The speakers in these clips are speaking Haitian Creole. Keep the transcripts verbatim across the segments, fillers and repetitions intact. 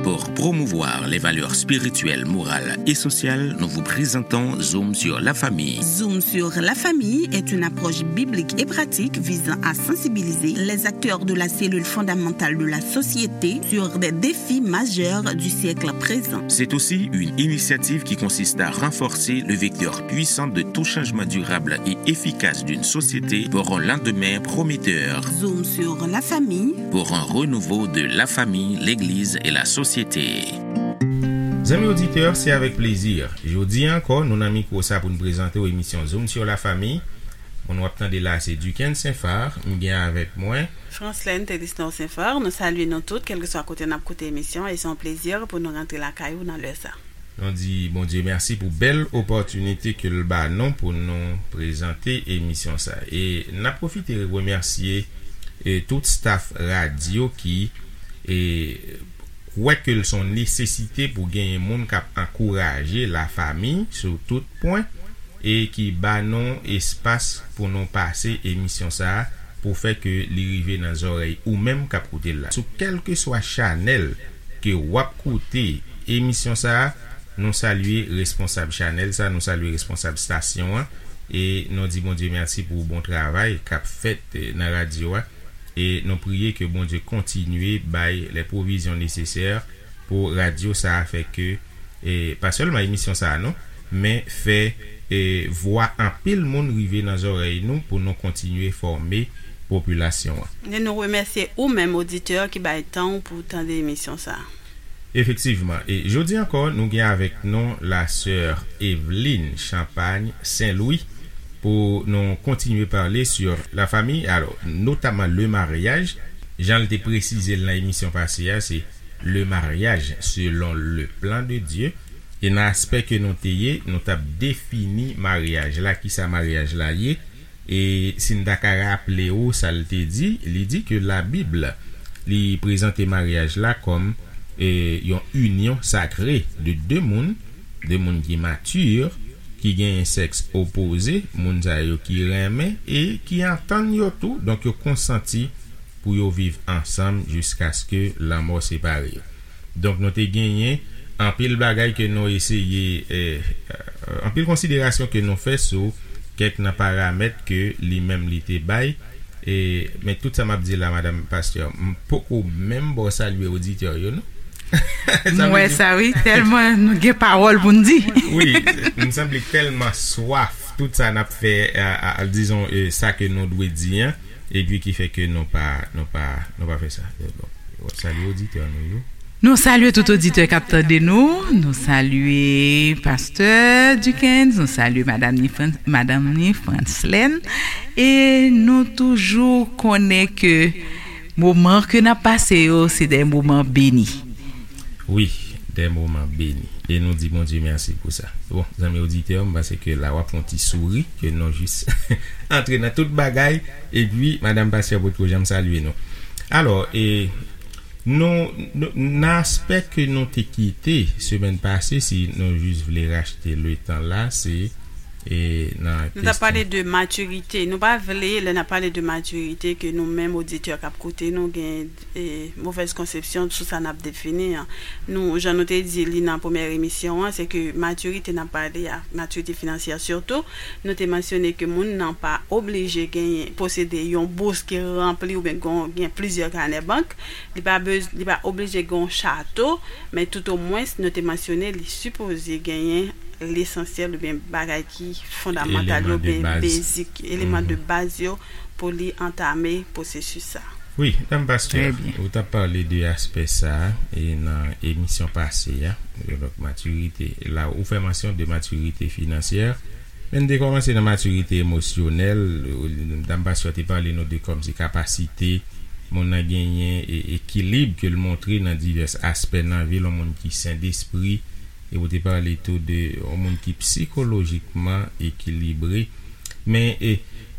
Pour promouvoir les valeurs spirituelles, morales et sociales, nous vous présentons Zoom sur la famille. Zoom sur la famille est une approche biblique et pratique visant à sensibiliser les acteurs de la cellule fondamentale de la société sur des défis majeurs du siècle présent. C'est aussi une initiative qui consiste à renforcer le vecteur puissant de tout changement durable et efficace d'une société pour un lendemain prometteur. Zoom sur la famille. Pour un renouveau de la famille, l'église et la société. Zanmi oditè, se avèk plezi. Jodi a ankò, nou nan mikwo sa pou n prezante w emisyon Zoom sur la famille. Moun w ap tande la, se Duquesne Saint-Phar. M gen avèk mwen Franslène Telisnor Saint-Phar. Nou salye nou tout, kèlkeswa kote n ap koute emisyon, e se yon plezi pou nou rantre lakay ou nan lè sa. Nou di Bondye mèsi pou bèl opòtinite ke l ba nou pou nou prezante emisyon sa. E n ap pwofite remèsye, e, tout staff radyo ki, e, kwè ke l se yon nesesite pou genyen moun k ap ankouraje lafanmi sou tout pwen e ki ba nou espas pou nou pase emisyon sa a pou fè ke li rive nan zòrèy ou menm k ap koute l la. Sou kèlkeswa chanèl ke w ap koute emisyon sa a, nou salye responsab chanèl sa, nou salye responsab stasyon an, e nou di Bondye mèsi pou bon travay k ap fèt, eh, nan radyo a, e nou priye ke Bondye kontinye bay lè pwovizyon nesesè pou radyo sa a fè ke, eh, pa sèlman emisyon sa a non, men fè, eh, vwa anpil moun rive nan zòrèy nou pou nou kontinye fòme popilasyon an. E nou remèsye ou menm oditè ki bay tan w pou w tande emisyon sa a. Efektivman, e jodi ankò, nou gen avèk nou la sè Eveline Champagne Saint-Louis pou nou kontinye pale sur la famille, alors, notamment le mariage. Jan l te presize l nan emisyon pase a, se le mariage selon le plan de Dieu. E nan aspè ke nou te ye, nou t ap defini maryaj la, kisa maryaj la ye. E si n ta ka raple w sa l te di, li di ke Labib, li prezante maryaj la kòm, e, yon inyon sakre de de moun, de moun ki mati, ki genyen sèks opoze, moun sa yo ki renmen e ki antann yo tou, donk yo konsanti pou yo viv ansanm jiskaske lanmò separe yo. Donk, nou te genyen anpil bagay ke nou eseye, eh, eh, anpil konsiderasyon ke nou fè sou kèk nan paramèt ke li menm li te bay. E, men tout sa m ap di la, madanm pastè, m poko menm ba w salye oditè yo, non? Sa M vle wè di sa, wi, tèlman nou gen pawòl pou n di. Wi, m sanble tèlman swaf tout sa n ap fè, a, a, a, dizon, eh, sa ke nou dwe di an, epi ki fè ke nou pa, nou pa, nou pa fè sa. Bon, salye oditè nou yo. Nou salye tout oditè k ap tande nou. Nou salye pastè Duckens, nou salye madanm ni Fran-, madanm ni Franslène. E nou toujou konnen ke moman ke n ap pase yo, se de moman beni. Wi, de moman beni. E nou di Bondye mèsi pou sa. Bon, zanmi oditè, m panse ke la w ap fè yon ti souri, ke nou jis antre nan tout bagay. Epi, madanm pastè potko janm salye nou. Alò, e, nou, nou, nan aspè ke nou te kite semèn pase, si nou jis vle rachte le tan la, se, e, nan Nou t ap pale kesyon de matirite. Nou pa vle, lè n ap pale de matirite, ke nou menm oditè k ap koute nou gen, e, movèz konsepsyon sou sa n ap defini an. Nou, jan nou te di li nan premyè emisyon an, se ke matirite n ap pale a, matirite finansyè sitou, nou te mansyone ke moun nan pa oblije genyen, posede yon bous ki ranpli oubyen gon-, gen plizyè kanè bank. Li pa bez-, li pa oblije gen yon chato, men toutomwens, nou te mansyone li sipoze genyen lesansyèl oubyen bagay ki fondamantal yo, Eleman de oubyen baz. Basic, eleman de Mhm. baz yo pou li antame pwosesis sa. Wi, dam pastè, Trè byen. Ou t ap pale de aspè sa a, e nan emisyon pase a, donk matirite, la ou fè mansyon de matirite finansyè, men n te kòmanse nan matirite emosyonèl, dam pastè te pale nou de kòmsi kapasite moun nan genyen e ekilib ke l montre nan divès aspè nan vi l, yon moun ki sen despri, e ou te pale tou de yon moun ki sikolojikman ekilibre. Men, e,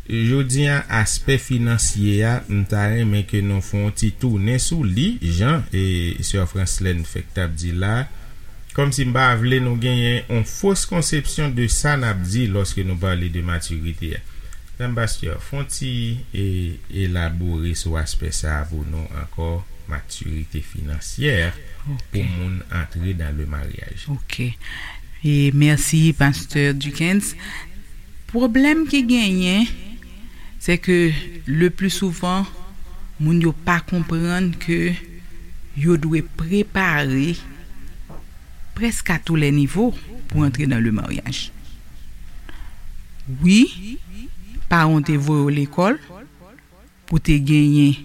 jodi a, aspè finansye a, m ta renmen ke nou fè yon ti tounen sou li, jan, e, sè Franslène fèk t ap di la, kòmsi m pa vle nou genyen yon fos konsepsyon de sa n ap di lòske nou pale de matirite a. Dam pastè, fè yon ti, e, elabore sou aspè sa a pou nou ankò. matirite finansyè pou moun antre dans le mariage. Ok. E mèsi, Pastè Duckens. Pwoblèm ki genyen, se ke le pli souvan, moun yo pa konprann ke yo dwe prepare prèske a tou lè nivo pou antre dans le mariage. Wi, paran w te voye w lekòl pou te genyen,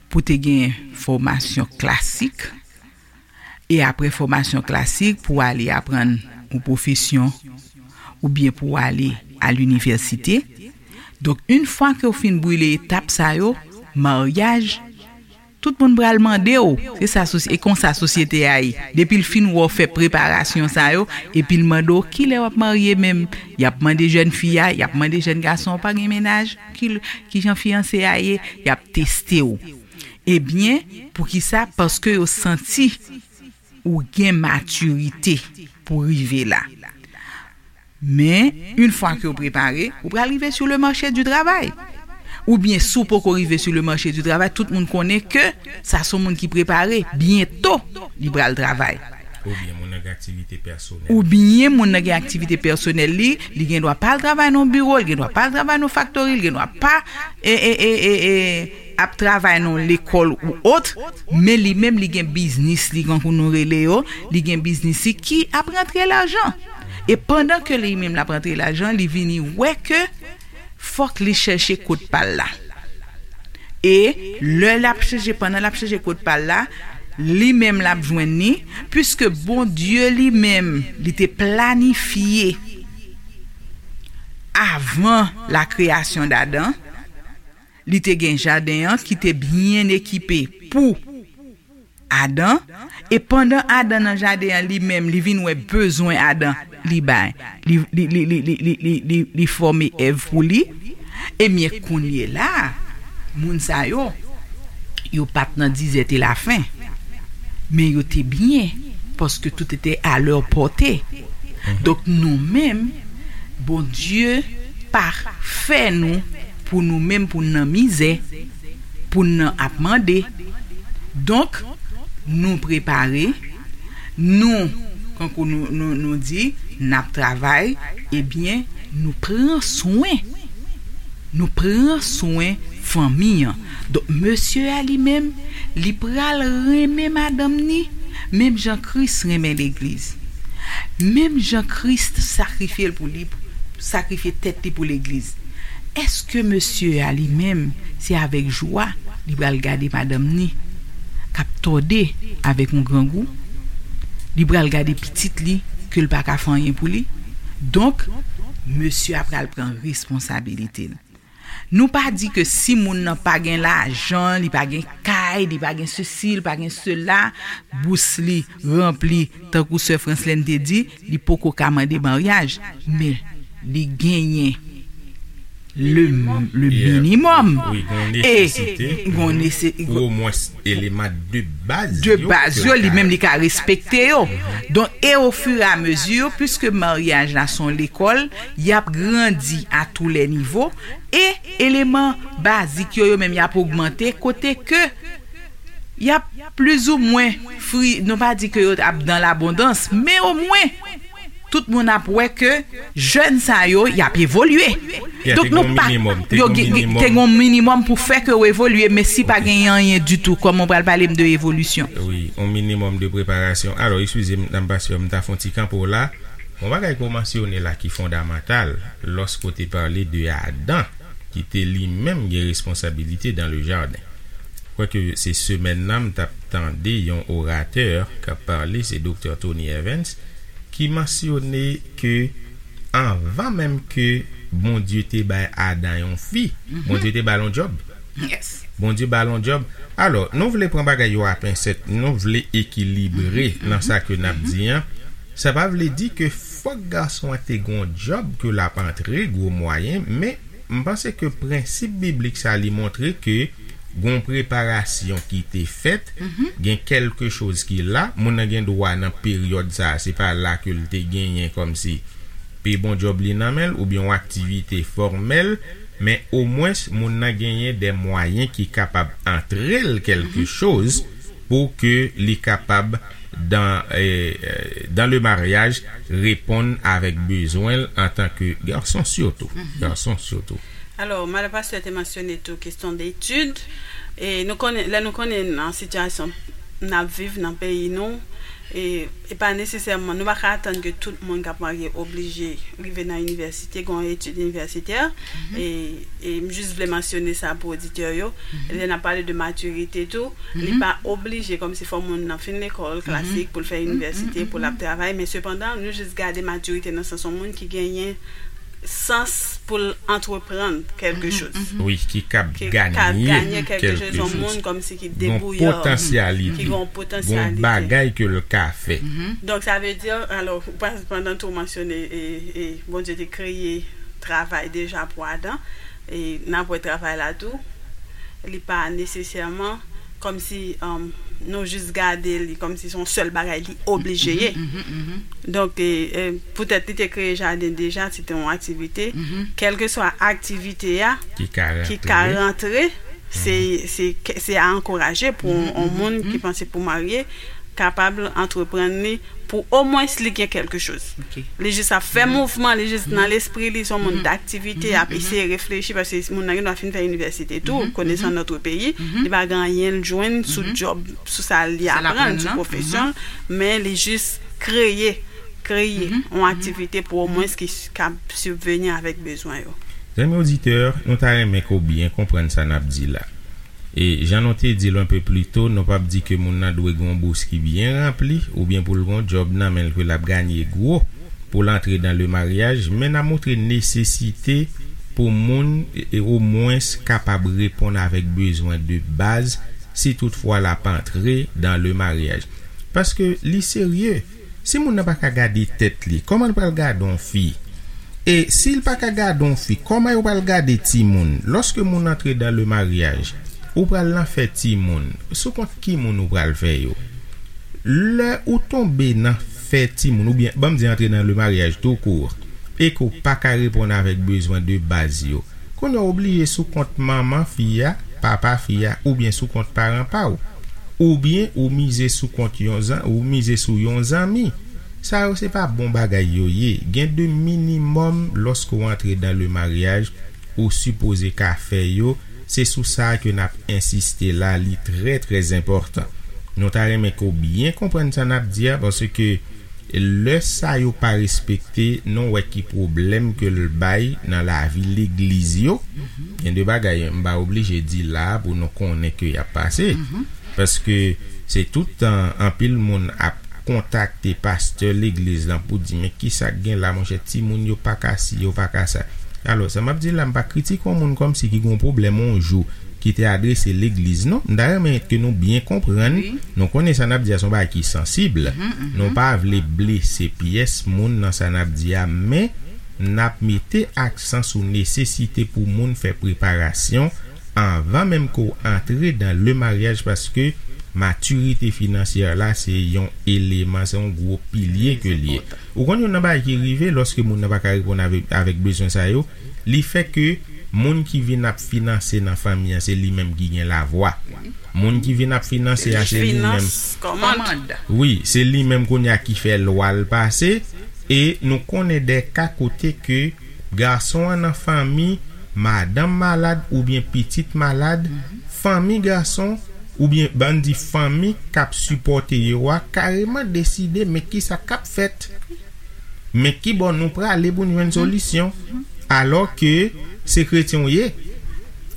pou te genyen fòmasyon klasik, e apre fòmasyon klasik pou ale aprann yon pwofesyon oubyen pou ale a linivèsite. Donk, yon fwa ke w fin brile etap sa yo, maryaj, tout moun pral mande w. Se sa, e konsa sosyete a ye. Depi l fin wè w fè preparasyon sa yo, epi l mande w kilè w ap marye menm. Y ap mande jèn fi a, y ap mande jèn gason an, pa gen mennaj, ki, ki jan fiyanse a ye, y ap teste w. Ebyen, poukisa? Paske yo santi ou gen matirite pou rive la. Men, yon fwa ke w prepare, ou pral rive sou le marché du travail. Oubyen, si w poko rive sou le marché du travail, tout moun konnen ke sa se yon moun ki prepare, byento, li pral travay. Oubyen, moun nan gen aktivite pèsonèl. Oubyen, moun nan gen aktivite pèsonèl li, li gen dwa pa al travay nan biwo, li gen dwa pa al travay nan faktori, li gen dwa pa, e, e, e, e, e, ap travay nan lekòl ou ot, men li menm li gen biznis li, kankou nou rele yo, li gen biznis li ki ap rantre lajan. E pandan ke li menm l ap rantre lajan, li vini wè ke fòk li chèche kot pa l la. E lè l ap chèche, pandan l ap chèche kot pa l la, li menm l ap jwenn li, piske Bondye li menm, li te planifye avan la création d'Adam, li te gen jaden an ki te byen ekipe pou Adan, e pandan Adan nan jaden an, li menm, li vin wè bezwen Adan, li bay, li, li, li fòme Èv pou li. Ebyen, kounye la, moun sa yo, yo pa t nan dizète lafen, men yo te byen, paske tout était à leur portée. Donk, nou menm, Bondye pa fè nou pou nou menm, pou n nan mizè, pou n nan ap mande. Donk, nou prepare, nou, kankou nou, nou, nou di, n ap travay, ebyen, nou pran swen. Nou pran swen fanmi an. Donk, mesye a li menm, li pral renmen madanm ni, menm jan Kris renmen legliz. Menm jan Kris sakrifye l pou li, sakrifye tèt li pou legliz. Èske mesye a li menm, se avèk jwa li pral gade madanm ni k ap tòde avèk yon grangou? Li pral gade pitit li ke l pa ka fè anyen pou li? Donk, mesye a pral pran responsabilite l. Nou pa di ke si moun nan pa gen lajan, li pa gen kay, li pa gen sesi, li pa gen sela, bous li ranpli, tankou sè Franslèn te di, li poko ka mande maryaj, men li genyen le, le minimòm. Wi, gon nesesite. Gon nese-, pou omwens eleman de baz de yo, baz yo, li menm li ka respekte yo. Donk, e ofiramezu, piske maryaj la se yon lekòl, y ap grandi a tou lè nivo, e eleman bazik yo, yo menm y ap ogmante, kote ke y ap plizoumwen fri, nou pa di ke yo ap dan labondans, men omwen, tout moun ap wè ke jèn sa yo, y ap evolye. Donk, nou pa, yo gen, te gen yon minimòm pou fè ke yo evolye, men si pa gen anyen ditou, kòman w pral pale m de evolisyon? Wi, yon minimòm de preparasyon. Alò, eskize m, nan paske m ta fè yon ti kanpe w la. Yon bagay ke w mansyone la ki fondamantal, lòske w te pale de Adan, ki te li menm gen responsabilite dans le jardin. Kwake se semèn nan, m t ap tande yon oratè k ap pale, se Doktè Tony Evans, ki mansyone ke anvan menm ke Bondye te bay Adan yon fi, Bondye te ba l yon djòb. Bondye ba l yon djòb. Alò, nou vle pran bagay yo a pensèt, nou vle ekilibre nan sa ke n ap di an. Sa pa vle di ke fòk gason an te gen yon djòb ke l ap antre gwo mwayen, men m panse ke prensip biblik sa li montre ke gon preparasyon ki te fèt, gen kèlke choz ki la, moun nan gen dwa nan peryòd sa, se pa la ke l te genyen kòmsi pi bon djòb li nan men l, oubyen yon aktivite fòmèl, men omwens moun nan genyen de mwayen ki kapab antre l kèlke choz pou ke li kapab dan, eh, eh, dan le maryaj reponn avèk bezwen l antan ke gason sitou. Gason sitou. Alò, madan pastè te mansyone tou kesyon de etid. E nou konnen, lè nou konnen nan sitiyasyon n ap viv nan peyi nou, e, e pa nesesèman, nou pa ka atann ke tout moun k ap marye oblije rive nan inivèsite, gen yon etid inivèsitè, e, e m jis vle mansyone sa pou oditè yo. Lè n ap pale de matirite tou, li pa oblije kòmsi fò moun nan fin lekòl klasik pou l fè inivèsite, pou l ap travay, men sepandan, nou jis gade matirite nan sans yon moun ki genyen sans pou l antreprann kèlke choz. Wi, ki kab Ki ka ganye ganye kèlke choz, kèlke yon choz. Moun kòmsi ki Gon debouyè, potansyalite. Ki gen yon Gon potansyalite. Bagay ke l ka fè. Donk, sa vle di, alò, pa- pandan tou mansyone, e, e, Bondye te kreye travay deja pou Adan, e n ap wè travay la tou, li pa nesesèman kòmsi um, nou jis gade li kòmsi se yon sèl bagay li oblije ye. Donk, e, e, poutèt li te kreye jaden deja, se te yon aktivite. Kèlkeswa aktivite a Ki ka ki rantre. Ka rantre, se se ke- se a ankouraje pou yon moun ki panse pou marye kapab antreprann li pou omwens li gen kèlke choz. Ok. Li jis ap fè mouvman, li jis nan lespri li, se yon moun daktivite, ap eseye reflechi, paske moun nan gen dwa fin fè inivèsite tou, konesan notre pays, li pa gen anyen l jwenn sou djòb, sou sa li Sa l aprann, aprann sou nan. Pwofesyon l, men li jis kreye, kreye yon aktivite pou omwens ki s- kab sibveni avèk bezwen yo. Zanmi oditè, nou ta renmen ke w byen konprann sa n ap di la. E jan nou te di l yon pe pli to, nou p ap di ke moun nan dwe gen yon bous ki byen ranpli oubyen pou l gen yon djòb nan men l ke l ap ganye gwo pou l antre dan le maryaj, men n ap montre nesesite pou moun e, e omwens kapab reponn avèk bezwen de baz si toutfwa l ap antre dan le maryaj. Paske li serye. Si moun nan pa ka gade tèt li, kòman l pral gade yon fi? E si l pa ka gade yon fi, kòman yo pral gade timoun? Lòske moun antre dan le maryaj, ou pral nan fè timoun. Sou kont ki moun ou pral fè yo? Lè ou tonbe nan fè timoun, oubyen, ban m di antre nan le maryaj tou kou, e ke w pa ka reponn avèk bezwen de baz yo, kounye a w oblije sou kont manman fi a, papa fi a, oubyen sou kont paran pa w. Oubyen ou mize sou kont yon zan, ou mize sou yon zanmi. Sa yo se pa bon bagay yo ye. Gen de minimòm lòske w antre dan le maryaj, ou sipoze ka fè yo. Se sou sa ke n ap ensiste la, li trè, trè enpòtan. Nou ta renmen ke w byen konprann sa n ap di a, paske lè sa yo pa respekte, nou wè ki pwoblèm ke l bay nan lavi legliz yo. Gen de bagay m pa oblije di la a pou nou konnen ke y ap pase. Paske se tout tan anpil moun ap kontakte pastè legliz lan pou di, men kisa k gen la, monchè, timoun yo pa ka si, yo pa ka sa. Alò, sa m ap di la, m pa kritike yon moun kòmsi ki gen yon pwoblèm yon jou ki te adrese legliz, non. M ta renmen ke nou byen konprann, nou konnen sa n ap di a se yon bagay ki sansib. Nou pa vle blese pyès moun nan sa n ap di a, men n ap mete aksan sou nesesite pou moun fè preparasyon anvan menm ke w antre dan le maryaj, paske matirite finansyè la se yon eleman, se yon gwo pilye ke l ye. Ou konn youn nan bagay ki rive lòske moun nan pa ka reponn avèk, avèk bezwen sa yo, li fè ke moun ki vin ap finanse nan fanmi an, se li menm ki gen lavwa. Moun ki vin ap finanse a, se li menm. Finans, kòmand. Wi, se li menm kounye a ki fè lwa l pase. E nou konnen de ka kote ke gason an nan fanmi, madanm malad oubyen pitit malad, fanmi gason oubyen ban n di fanmi k ap sipòte yo a kareman deside men kisa k ap fèt. Men ki bò nou prale pou n jwenn solisyon? Alò ke se kretyen w ye.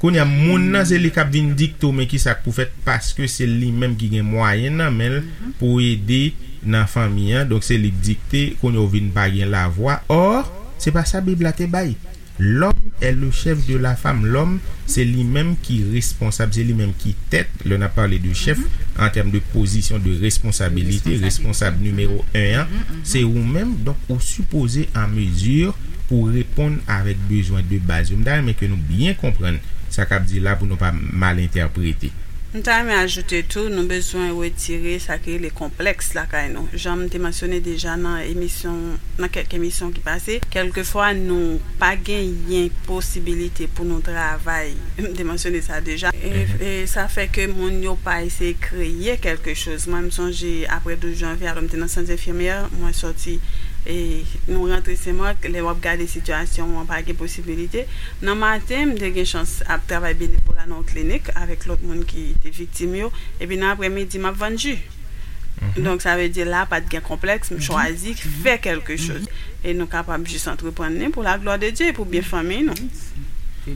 Kounye a, moun nan se li k ap vin dikte w men kisa k pou fèt, paske se li menm ki gen mwayen nan men l pou ede nan fanmi an. Donk se li k dikte, kounye a w vin pa gen lavwa. Or, se pa sa Bib la te bay. L'homme est le chef de la femme. Lòm, se li menm ki responsab, se li menm ki tèt. Lè n ap pale de chèf, an tèm de pozisyon de responsabilite, responsab nimewo en an, se ou menm. Donk, ou sipoze an mezi pou reponn avèk bezwen de baz yo. M ta renmen ke nou byen konprann sa k ap di la pou nou pa mal entèprete. M ta renmen ajoute tou, nou bezwen retire sa ki rele konplèks lakay nou. Jan m te mansyone deja nan emisyon, nan kèk emisyon ki pase, kèlkefwa nou pa genyen posibilite pou nou travay. M te mansyone sa deja. E, e sa fè ke moun yo pa eseye kreye kèlke choz. Mwen, m sonje apre douz janvye a, lè m te nan sant enfimyè, mwen sòti, e nou rantre Senmak, lè w ap gade sitiyasyon an, pa gen posibilite. Nan maten, m te gen chans ap travay benevola nan yon klinik avèk lòt moun ki te viktim yo. Epi nan aprèmidi, m ap vann ji. Donk, sa vle di la, pa t gen konplèks, m chwazi fè kèlke choz. E nou kapab jis antreprann li pou la glwa de Dye, pou byen fanmi nou.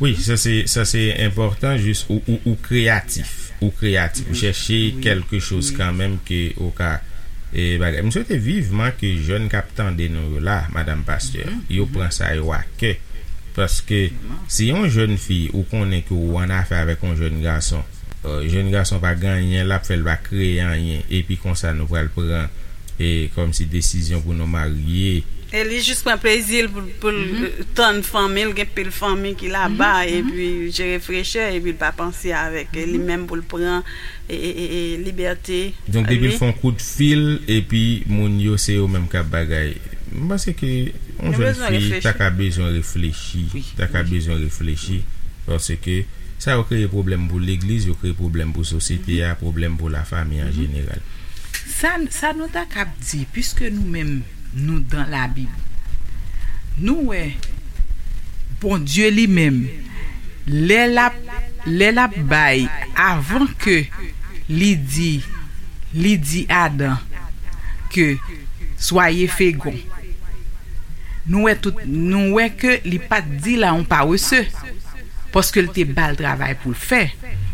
Wi, sa se, sa se enpòtan, jis ou, ou, ou kreyatif. Ou kreyatif. Ou chèche kèlke choz kanmenm ke ou ka e bagay. M swete vivman ke jèn k ap tande nou yo la, madanm pastè, yo pran sa yo a kè. Paske si yon jèn fi ou konnen ke ou annafè avèk yon jèn gason, jèn gason pa gen anyen l ap fè, l pa kreye anyen, epi konsa nou pral pran e kòmsi desizyon pou nou marye. E li jis pran plezi l pou, pou l tann fanmi l, gen pil fanmi ki laba, epi jere frechè, epi l pa panse avèk li menm pou l pran e, e, e, e libète. Donk depi l fè yon kout fil epi moun yo se yo menm k ap bagay, m panse ke yon jèn fi ta ka bezwen reflechi, ta ka bezwen reflechi, paske sa yo kreye pwoblèm pou legliz, yo kreye pwoblèm pou sosyete a, pwoblèm pou lafanmi an jeneral. Sa, sa nou ta kab di, piske nou menm nou dan Labib, nou wè Bondye li menm, lè l ap, lè l ap bay, avan ke li di, li di Adan ke soyez féconds, nou wè tout, nou wè ke li pa t di l a yon parese, paske l te ba l travay pou l fè,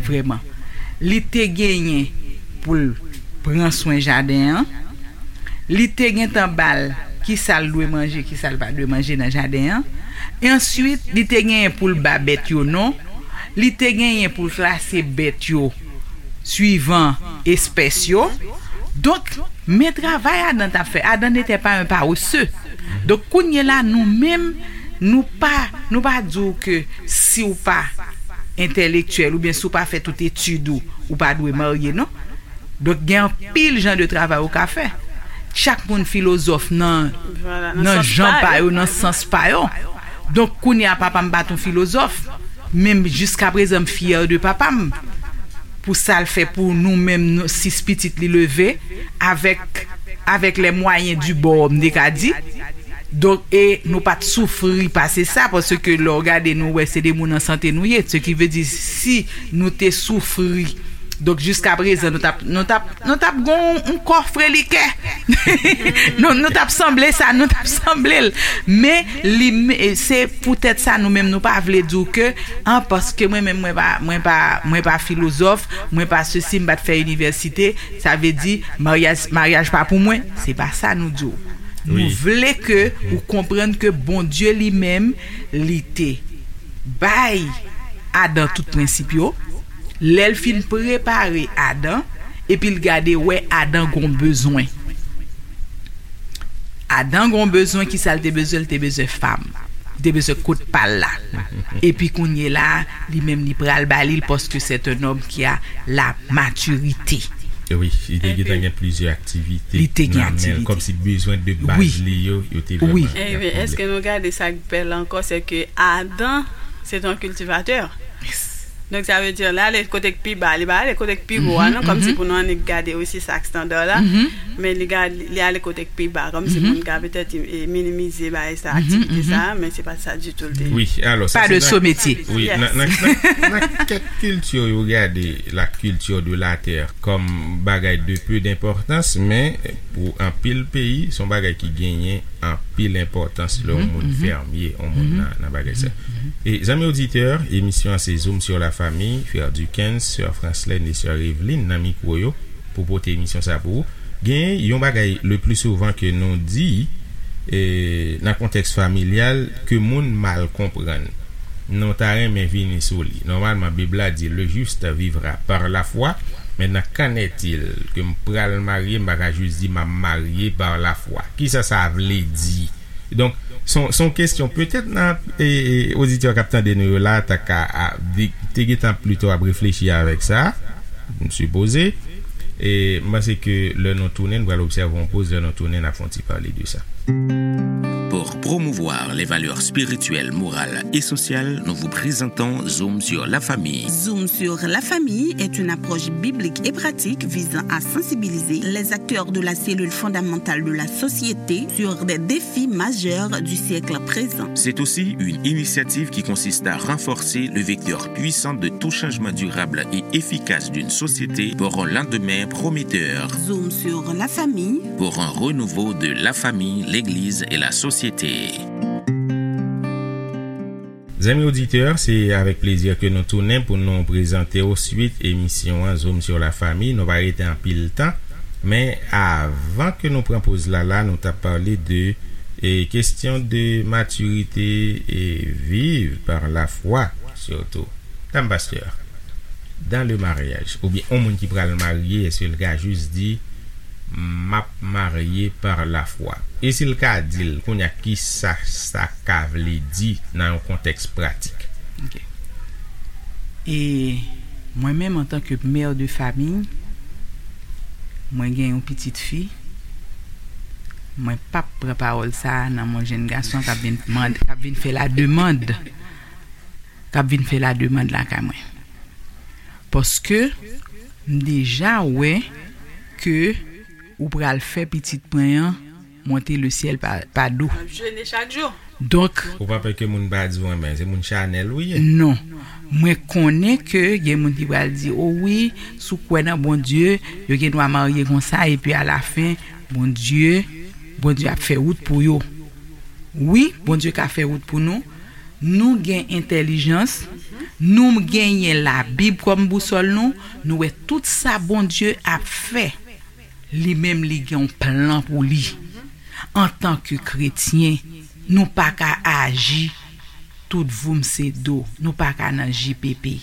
vrèman. Li te genyen pou l pran swen jaden an, li te gentan ba l kisa l dwe manje, kisa l pa dwe manje nan jaden an. E answit, li te genyen pou l ba bèt yo non. Li te genyen pou l klase bèt yo swivan espès yo. Donk, men travay Adan t ap fè. Adan n'était pas un paresseux. Donk, kounye la, nou menm, nou pa, nou pa di w ke si w pa entèlektyèl oubyen si w pa fè tout etid ou, ou pa dwe marye, non. Donk, gen anpil jan de travay ou ka fè. Chak moun filozòf nan, nan jan pa yo, nan sans pa yo. Donk, kounye a, papa m pa t yon filozòf, men m, jiskaprezan, m fyè de papa m pou sa l fè pou nou menm, nou, sis pitit li leve avèk, avec les moyens du bord, m te ka di. Donk, e nou pa t soufri pase sa, paske lè w gade, nou wè se de moun an sante nou ye. Se ki vle di, si nou te soufri, donk, jiskaprezan, nou t ap, nou t ap, nou t ap gon yon kòfrelikè. Nou, nou t ap sanble sa, nou t ap sanble l. Men, li, se poutèt sa, nou menm, nou pa vle di w ke, an, paske mwen menm, mwen pa, mwen pa, mwen pa filozòf, mwen pa sesi, m pa t fè inivèsite, sa vle di, maryaj, maryaj pa pou mwen. Se pa sa nou di w. Nou vle ke ou konprann ke Bondye li menm, li te bay Adan tout prensip yo. Lè l fin prepare Adan, epi l gade, wè Adan gon bezwen. Adan gon bezwen, kisa l te bezwen? L te bezwen fanm. Li te bezwen kot pa l la. Epi kounye la, li menm li pral ba li l, paske c'est un homme qui a la maturité. Wi, li te gentan gen plizyè aktivite. Li te gen aktivite. Kòmsi bezwen de baz li yo, yo te vrèman. Ebyen, èske nou gade sa k bèl ankò, se ke Adan, se te yon kiltivatè. Donk, sa vle di, l ale kote k pi ba. Li pa ale kote k pi wo a, non, kòmsi pou nou annik gade osi sa k estanda la. Men li gade, li ale kote k pi ba, kòmsi moun ka petèt minimize bagay sa, aktivite sa, men se pa sa ditou l te ye. Wi, alò, sa se nan, wi, nan, nan, nan, nan kèk kilti yo gade la culture de la terre kòm bagay de peu d'importance, men pou anpil peyi, se yon bagay ki genyen anpil enpòtans lè yon moun fèmye, yon moun nan, nan bagay sa. E zanmi oditè, emisyon an se Zoom sur la famille, frè Duckens, sè Franslène e sè Eveline nan mikwo yo pou pote emisyon sa pou ou. Gen yon bagay le pli souvan ke nou di e, nan kontèks familyal ke moun mal konprann. Nou ta renmen vini sou li. Nòmalman, Bib la di, le juste vivra par la foi. Maintenant, qu'en est-il? Ke m pral marye, m pa ka jis di m ap marye par la foi. Kisa sa vle di? Donk, se yon, se yon kesyon, petèt nan, e, e, oditè k ap tande nou yo la, ta ka, a, di, te gentan plito ap reflechi avèk sa. M sipoze. E m panse ke lè nou tounen, nou pral obsève yon poz, lè nou tounen, n ap fè yon ti pale de sa. Pour promouvoir les valeurs spirituelles, morales et sociales, nous vous présentons Zoom sur la famille. Zoom sur la famille est une approche biblique et pratique visant à sensibiliser les acteurs de la cellule fondamentale de la société sur des défis majeurs du siècle présent. C'est aussi une initiative qui consiste à renforcer le vecteur puissant de tout changement durable et efficace d'une société pour un lendemain prometteur. Zoom sur la famille. Pour un renouveau de la famille, l'Église et la société. Zanmi oditè, se avèk plezi ke nou tounen pou nou prezante w swit emisyon an Zoom sur la famille. Nou pa rete anpil tan, men avan ke nou pran poz la la, nou t ap pale de e, kesyon de matirite e viv par la foi, sitou. Dam pastè, dans le mariage, oubyen yon moun ki pral marye, èske l ka jis di, "M ap marye par la foi"? E si l ka di l, kounye a, kisa sa ka vle di nan yon kontèks pratik? Ok. E mwen menm, antanke mè de famiy, mwen gen yon pitit fi, mwen p ap pran pawòl sa a nan men yon jenn gason k ap vin mande, k ap vin fè lademann, k ap vin fè lademann lakay mwen. Paske m deja wè ke ou pral fè pitit mwen an monte le syèl pa, pa do. Ap jene chak jou. Donk, ou pa pè ke moun pa di w renmen, se moun chanèl ou ye? Non. Mwen konnen ke gen moun ki pral di, "O wi, si w kwè nan Bondye, yo gen dwa marye konsa, epi alafen, Bondye, Bondye ap fè wout pou yo." Wi, Bondye ka fè wout pou nou. Nou gen entèlijans, nou genyen Labib kòm bousòl nou, nou wè tout sa Bondye ap fè. Li menm, li gen yon plan pou li. Antanke kretyen, nou pa ka aji tout voum se do. Nou pa ka nan J P P.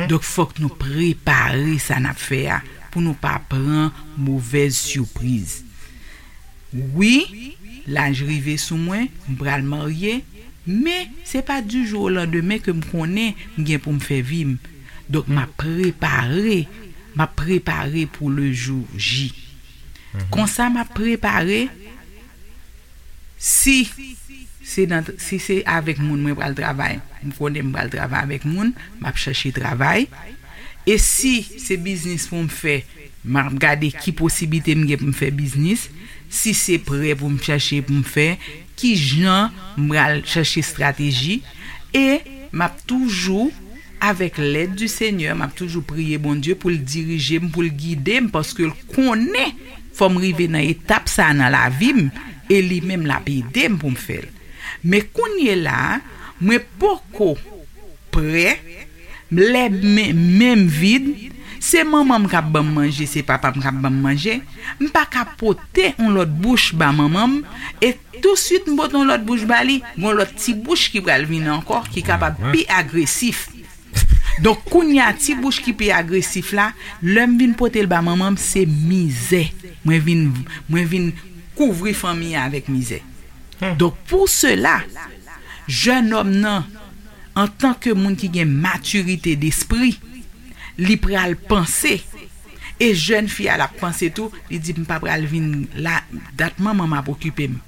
Donk, fòk nou prepare sa n ap fè a pou nou pa pran movèz sipriz. Wi, laj rive sou mwen, m pral marye, men se pa du jour au lendemain ke m konnen m gen pou m fè vi m. Donk, m ap prepare, m ap prepare pou le jour J. Konsa, m ap prepare, si se nan, si se avèk moun mwen pral travay, m konnen m pral travay avèk moun, m ap chèche travay. E si se biznis pou m fè, m ap gade ki posiblite m gen pou m fè biznis. Si se prè pou m chèche pou m fè, ki jan m pral chèche estrateji. E m ap toujou, avèk lèd di Senyè, m ap toujou priye Bondye pou l dirije m, pou l gide m, paske l konnen fò m rive nan etap sa a nan lavi m, e li menm l ap ede m pou m fè l. Men kounye la a, mwen poko prè, lè men, men m vid, se manman m k ap ban m manje, se papa m k ap ban m manje, m pa ka pote yon lòt bouch ba manman m, e touswit m pote yon lòt bouch ba li, gon lòt ti bouch ki pral vini ankò, ki kapab pi agresif. Donk, kounye a, ti bouch ki pi agresif la, lè m vin pote l ba manman m, se mizè. Mwen vin, mwen vin kouvri fanmi an avèk mizè. Donk, pou sela, jennonm nan, antanke moun ki gen matirite despri, li pral panse. E jèn fi a, l ap panse tou, li di, "M pa pral vin la, dat manman m ap okipe m.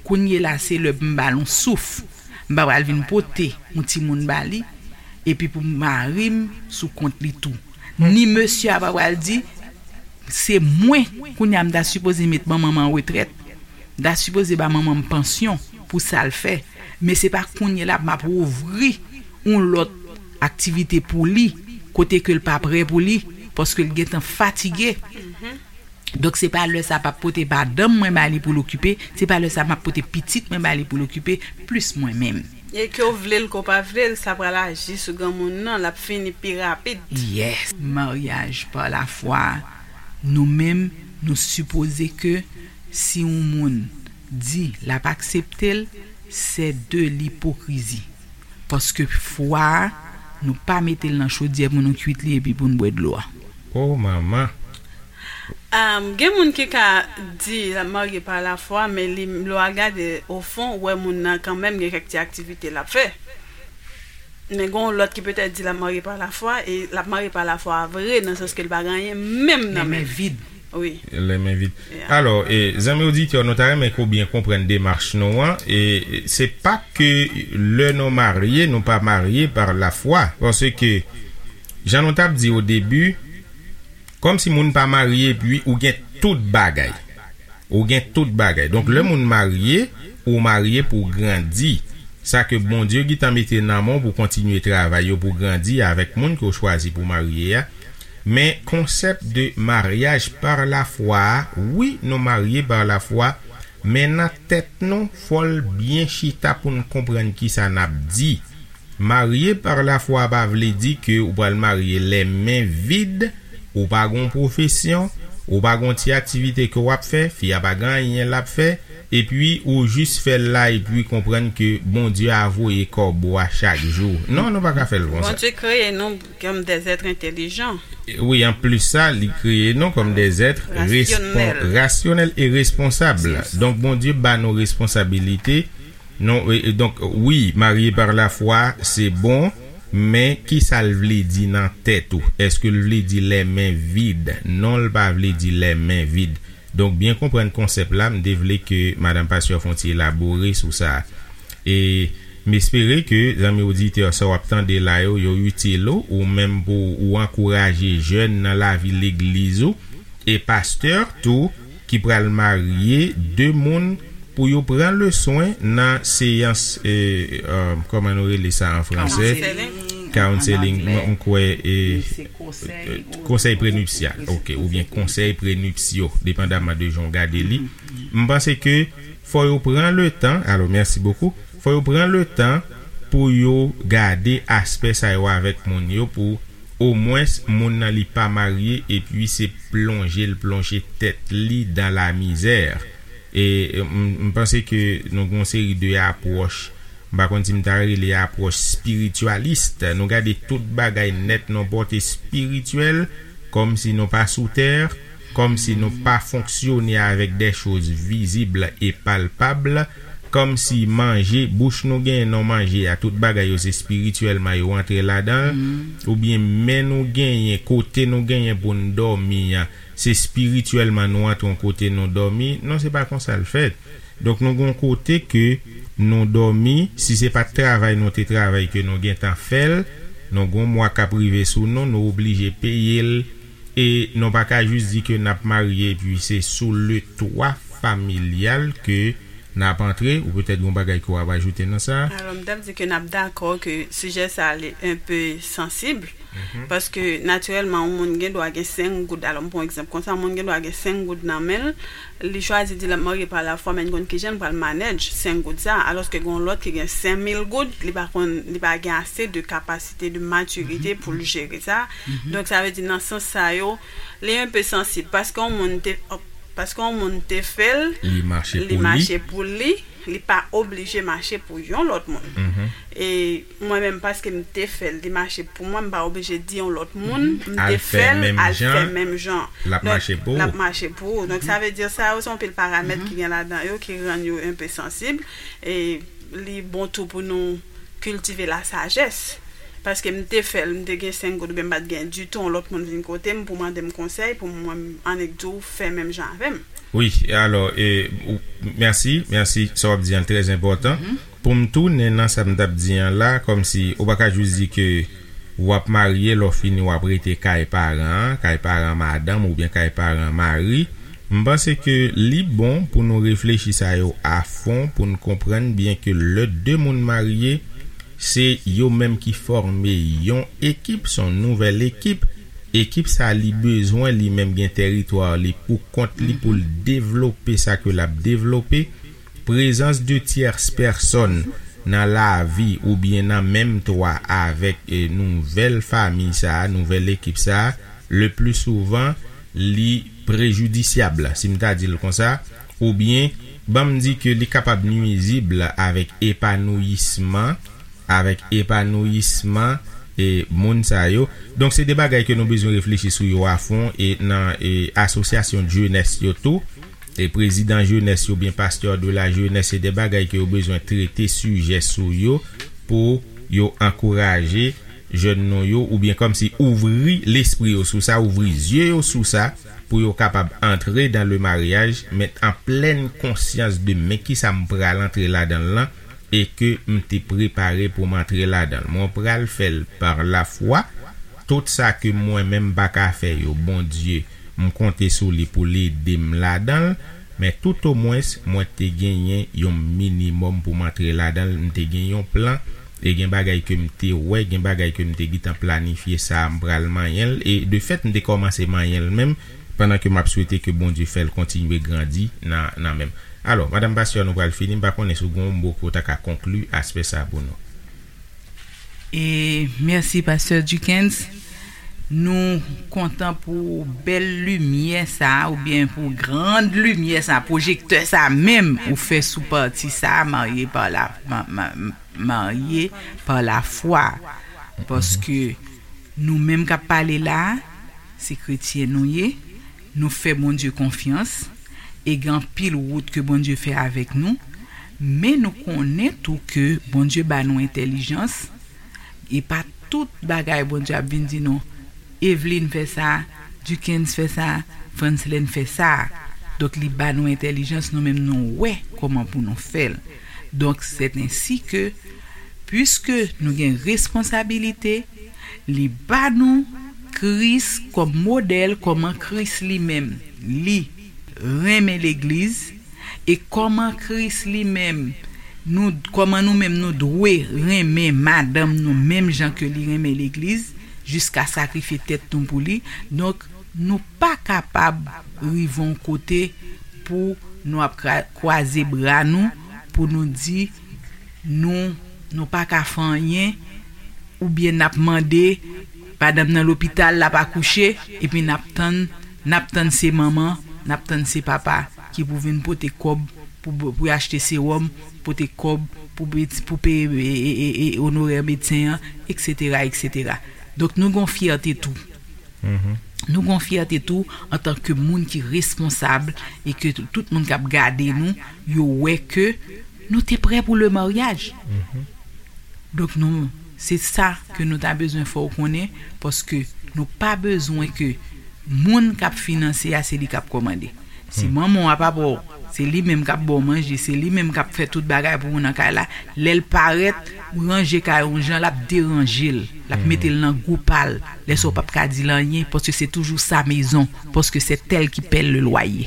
Kounye la, se lè pou m ba l yon souf. M pa pral vin pote yon timoun ba li, epi pou mari m sou kont li tou." Ni mesye a pa pral di, "Se mwen, kounye a m ta sipoze met manman m an retrèt. M ta sipoze ba manman m pansyon pou sa l fè. Men se pa kounye la m ap ouvri yon lòt aktivite pou li, kote ke l pa prè pou li, paske l gentan fatige." Donk, se pa lè sa m ap pote madanm mwen ba li pou l okipe, se pa lè sa m ap pote pitit mwen ba li pou l okipe, plis mwen menm. E ke w vle l, ke w pa vle l, sa pral aji sou granmoun nan, l ap fini pi rapid. Yes. Maryaj pa lafwa, nou menm, nou sipoze ke si yon moun di l ap aksepte l, se de lipokrizi. Paske fwa a, nou pa mete l nan chodyè pou nou kuit li epi pou n bwè dlo a. O manman! Am, gen moun ki ka di l ap marye pa lafwa, men li, lè w al gade ofon, ou wè moun nan kanmenm gen kèk ti aktivite l ap fè. Men gen yon lòt ki petèt di l ap marye pa lafwa, e l ap marye pa lafwa vre, nan sans ke l pa gen anyen menm nan men l. Vid. Wi. Lè men vid. Alò, e, zanmi oditè, nou ta renmen ke w byen konprann demach nou an. E se pa ke lè nou marye, nou pa marye pa lafwa. Paske, jan nou t ap di o debi, kòmsi moun pa marye epi ou gen tout bagay. Ou gen tout bagay. Donk, lè moun marye, ou marye pou w grandi. Sa ke Bondye gentan mete nan men w pou kontinye travay yo pou grandi avèk moun ke w chwazi pou w marye a. Men konsèp de maryaj pa lafwa a, wi, nou marye pa lafwa, men nan tèt nou, fò l byen chita pou n konprann kisa n ap di. Marye pa lafwa pa vle di ke ou pral marye lè men vid, ou pa gon pwofesyon, ou pa gon ti aktivite ke w ap fè, fi a pa gen anyen l ap fè, epi ou jis fè l la epi konprann ke Bondye a voye kòb ou a chak jou. Non, nou pa ka fè l konsa. Bondye kreye nou kòm des êtres intelligents. Wi, anplis sa, li kreye nou kòm des êtres rasyonèl e responsab. Donk, Bondye ba nou responsabilite. Non, e, e, donk, wi, marye pa lafwa, se bon, men kisa l vle di nan tèt ou? Èske l vle di lè men vid? Non, l pa vle di lè men vid. Donk, byen konprann konsèp la, m te vle ke madanm pastè fè yon ti elabore sou sa. E m espere ke zanmi oditè sa w ap tande la yo, yo itil ou, ou menm pou ou ankouraje jèn nan lavi legliz ou, e pastè tou, ki pral marye de moun pou yo pran leswen nan seyans, e, e, kòman nou rele sa an franse? Counseling. Counseling, mwen, m kwè, e, konsèy prenipsyal, ok, oubyen konsèy prenipsyo, depandaman de jan w gade li. M panse ke fò yo pran letan, alò, mèsi bokou, fò yo pran letan pou yo gade aspè sa yo avèk moun yo, pou omwens moun nan li pa marye epi se plonje l plonje tèt li dan lamizè. E m, m panse ke nou gen yon seri de apwòch, m pa konn si m ta rele apwòch spirityalis. Nou gade tout bagay nèt nan pòte espirityèl, kòmsi nou pa sou tè, kòmsi nou pa fonksyone avèk de choz vizib e palpab, kòmsi manje, bouch nou genyen nan manje a, tout bagay yo se espirityèlman yo antre ladan l, oubyen men nou genyen, kote nou genyen pou n dòmi an, se espirityèlman nou antre yon kote nou dòmi. Non, se pa konsa l fèt. Donk, nou gen yon kote ke nou dòmi, si se pa t travay nou te travay ke nou gentan fè l, nou gen yon mwa k ap rive sou nou, nou oblije peye l, e nou pa ka jis di ke n ap marye epi se sou le twa familyal ke n ap antre, ou petèt gen yon bagay ke w ap ajoute nan sa. Alò, m t ap di ke n ap dakò ke sijè sa a li enpe sansib, paske natirèlman, yon moun gen dwa gen senk goud. Alò, m pran yon egzanp konsa, yon moun gen dwa gen senk goud nan men l, li chwazi di l ap marye pa lafwa, men n konn kijan l pral manage senk goud sa, alòske gen yon lòt ki gen senk mil goud, li pa konn, li pa gen ase de kapasite, de matirite pou l jere sa. Donk, sa vle di, nan sans sa yo, li enpe sansib, paske yon moun te, paske yon moun te fè l, li mache pou li, li pa oblije mache pou yon lòt moun. E mwen menm, paske m te fè l, li mache pou mwen, m pa oblije di yon lòt moun m te fè l al fè menm jan. L ap mache pou ou. Donk, sa vle di, sa yo se yon pil paramèt ki gen ladan yo ki rann yo enpe sansib. E li bon tou pou nou kiltive lasajès. Paske m te fè l, m te gen senk goud, oubyen m pa t gen ditou, yon lòt moun vin kote m pou mande m konsèy, pou mwen, annik di w, fè menm jan avè m. Wi, alò, e, ou, mèsi, mèsi, sa w ap di an trè enpòtan. Pou m tounen nan sa m t ap di an la, kòmsi ou pa ka jis di ke w ap marye, lè w fini w ap rete kay paran an, kay paran madanm oubyen kay paran mari. M panse ke li bon pou nou reflechi sa yo afon, pou n konprann byen ke lè de moun marye, se yo menm ki fòme yon ekip, se yon nouvèl ekip. Ekip sa li bezwen li menm gen tèritwa li pou kont li pou l devlope sa ke l ap devlope. Prezans de tyès pèsòn nan lavi oubyen nan menm twa avèk, e, nouvèl fanmi sa a, nouvèl ekip sa a, le pli souvan, li prejidisyab, si m ta di l konsa, oubyen, ban m di ke li kapab nwizib avèk epanouyisman, avèk epanouyisman, e, moun sa yo. Donk, se de bagay ke nou bezwen reflechi sou yo afon, e nan, e, asosyasyon jenès yo tou, e prezidan jenès yo oubyen pastè de la jenès, se de bagay ke yo bezwen trete sijè sou yo pou yo ankouraje jèn nou yo, oubyen kòmsi ouvri lespri yo sou sa, ouvri zye yo sou sa, pou yo kapab antre dans le mariage, men an plèn konsyans de men kisa m pral antre ladan l lan, e ke m te prepare pou m antre ladan l. Mwen pral fè l par la foi. Tout sa ke mwen menm m pa ka fè yo, Bondye, m konte sou li pou l ede m ladan l, men toutomwens, mwen te genyen yon minimòm pou m antre ladan l, m te gen yon plan, e gen bagay ke m te wè, gen bagay ke m te gentan planifye sa, m pral manyen l, e de fèt, m te kòmanse manyen l menm, pandan ke m ap swete ke Bondye fè l kontinye grandi nan, nan men m. Alò, Madanm Pastè, nou pral fini, m pa konnen si w gen yon mo ke w ta ka konkli aspè sa a pou nou. E mèsi, Pastè Duckens. Nou kontan pou bèl limyè sa a, oubyen pou grand limyè sa a, pwojektè sa a menm, ou fè sou pati sa a, marye pa la, ma, ma, marye pa la fwa. Paske nou menm k ap pale la a, se kretyen nou ye, nou fè Bondye konfyans, e gen anpil wout ke Bondye fè avèk nou, men nou konnen tou ke Bondye ba nou entèlijans, e pa tout bagay Bondye ap vin di nou, Eveline fè sa, Duckens fè sa, Franslène fè sa. Donk, li ba nou entèlijans, nou menm nou wè kòman pou nou fè l. Donk, c'est ainsi que, puiske nou gen responsabilite, li ba nou Kris kòm modèl, kòman Kris li menm, li renmen legliz, e kòman Kris li menm, nou, kòman nou menm nou dwe renmen madanm nou menm jan ke li renmen legliz, jiska sakrifye tèt nou pou li. Donk, nou pa kapab rive yon kote pou nou ap kra-, kwaze bra nou, pou nou di nou, nou pa ka fè anyen, oubyen n ap mande, madanm nan lopital, l ap akouche, epi n ap tann, n ap tann se manman, n ap tann se papa ki pou vin pote kòb pou, pou achte sewòm, pote kòb pou, pou peye e, e, e, onorè medsen an, etsetera, etsetera. Donk, nou gen yon fyète tou. Nou gen yon fyète tou antanke moun ki responsab e ke tout moun k ap gade nou, yo wè ke nou te prè pou le maryaj. Donk, nou, se sa ke nou ta bezwen fè w konnen, paske nou pa bezwen ke moun k ap finanse a, se li k ap kòmande. Si manman w ap ap wè w, se li menm k ap ba w manje, se li menm k ap fè tout bagay pou ou nan kay la, lè l parèt, ranje kay ou jan, l ap deranje l, l ap mete l nan gou pa l. Lè sa w p ap ka di l anyen, paske se toujou sa mezon, paske c'est elle qui paie le loyer.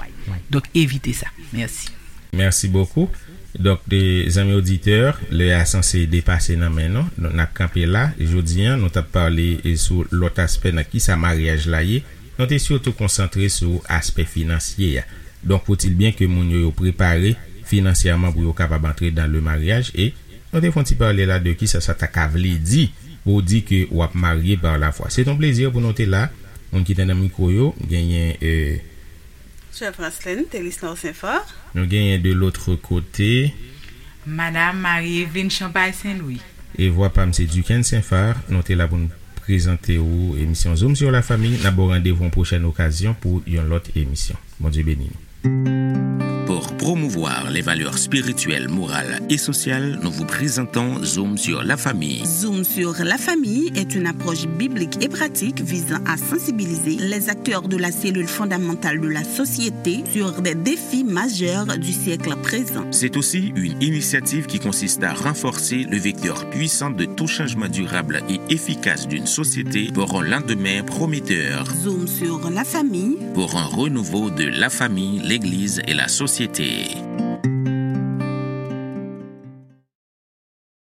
Donk, evite sa. Mèsi. Mèsi bokou. Donk, de, zanmi oditè, lè a sanse depase nan men nou. Donk, n ap kanpe la. Jodi a, nou t ap pale, e, sou lòt aspè nan kisa maryaj la ye. Nou te sitou konsantre sou aspè finansye a. Donk, fòtil byen ke moun yo, yo prepare finansyèman pou yo kapab antre dans le mariage. E nou te fè yon ti pale la de kisa sa ta ka vle di pou w di ke w ap marye par la foi. Se yon plezi pou nou te la. Moun ki te nan mikwo yo, genyen, e, Sè Franslène Telisnor Senfò. Nou genyen de l'autre côté. Madanm Marie Eveline Champagne Saint-Louis. E vwa pa m se Duckens Saint-Phar, nou te la pou n prezante ou emisyon Zoom sur la famille. N ap ba w randevou yon pwochèn okazyon pou yon lòt emisyon. Bondye beni nou. Pour promouvoir les valeurs spirituelles, morales et sociales, nous vous présentons Zoom sur la famille. Zoom sur la famille est une approche biblique et pratique visant à sensibiliser les acteurs de la cellule fondamentale de la société sur des défis majeurs du siècle présent. C'est aussi une initiative qui consiste à renforcer le vecteur puissant de tout changement durable et efficace d'une société pour un lendemain prometteur. Zoom sur la famille. Pour un renouveau de la famille, l'Église et la société.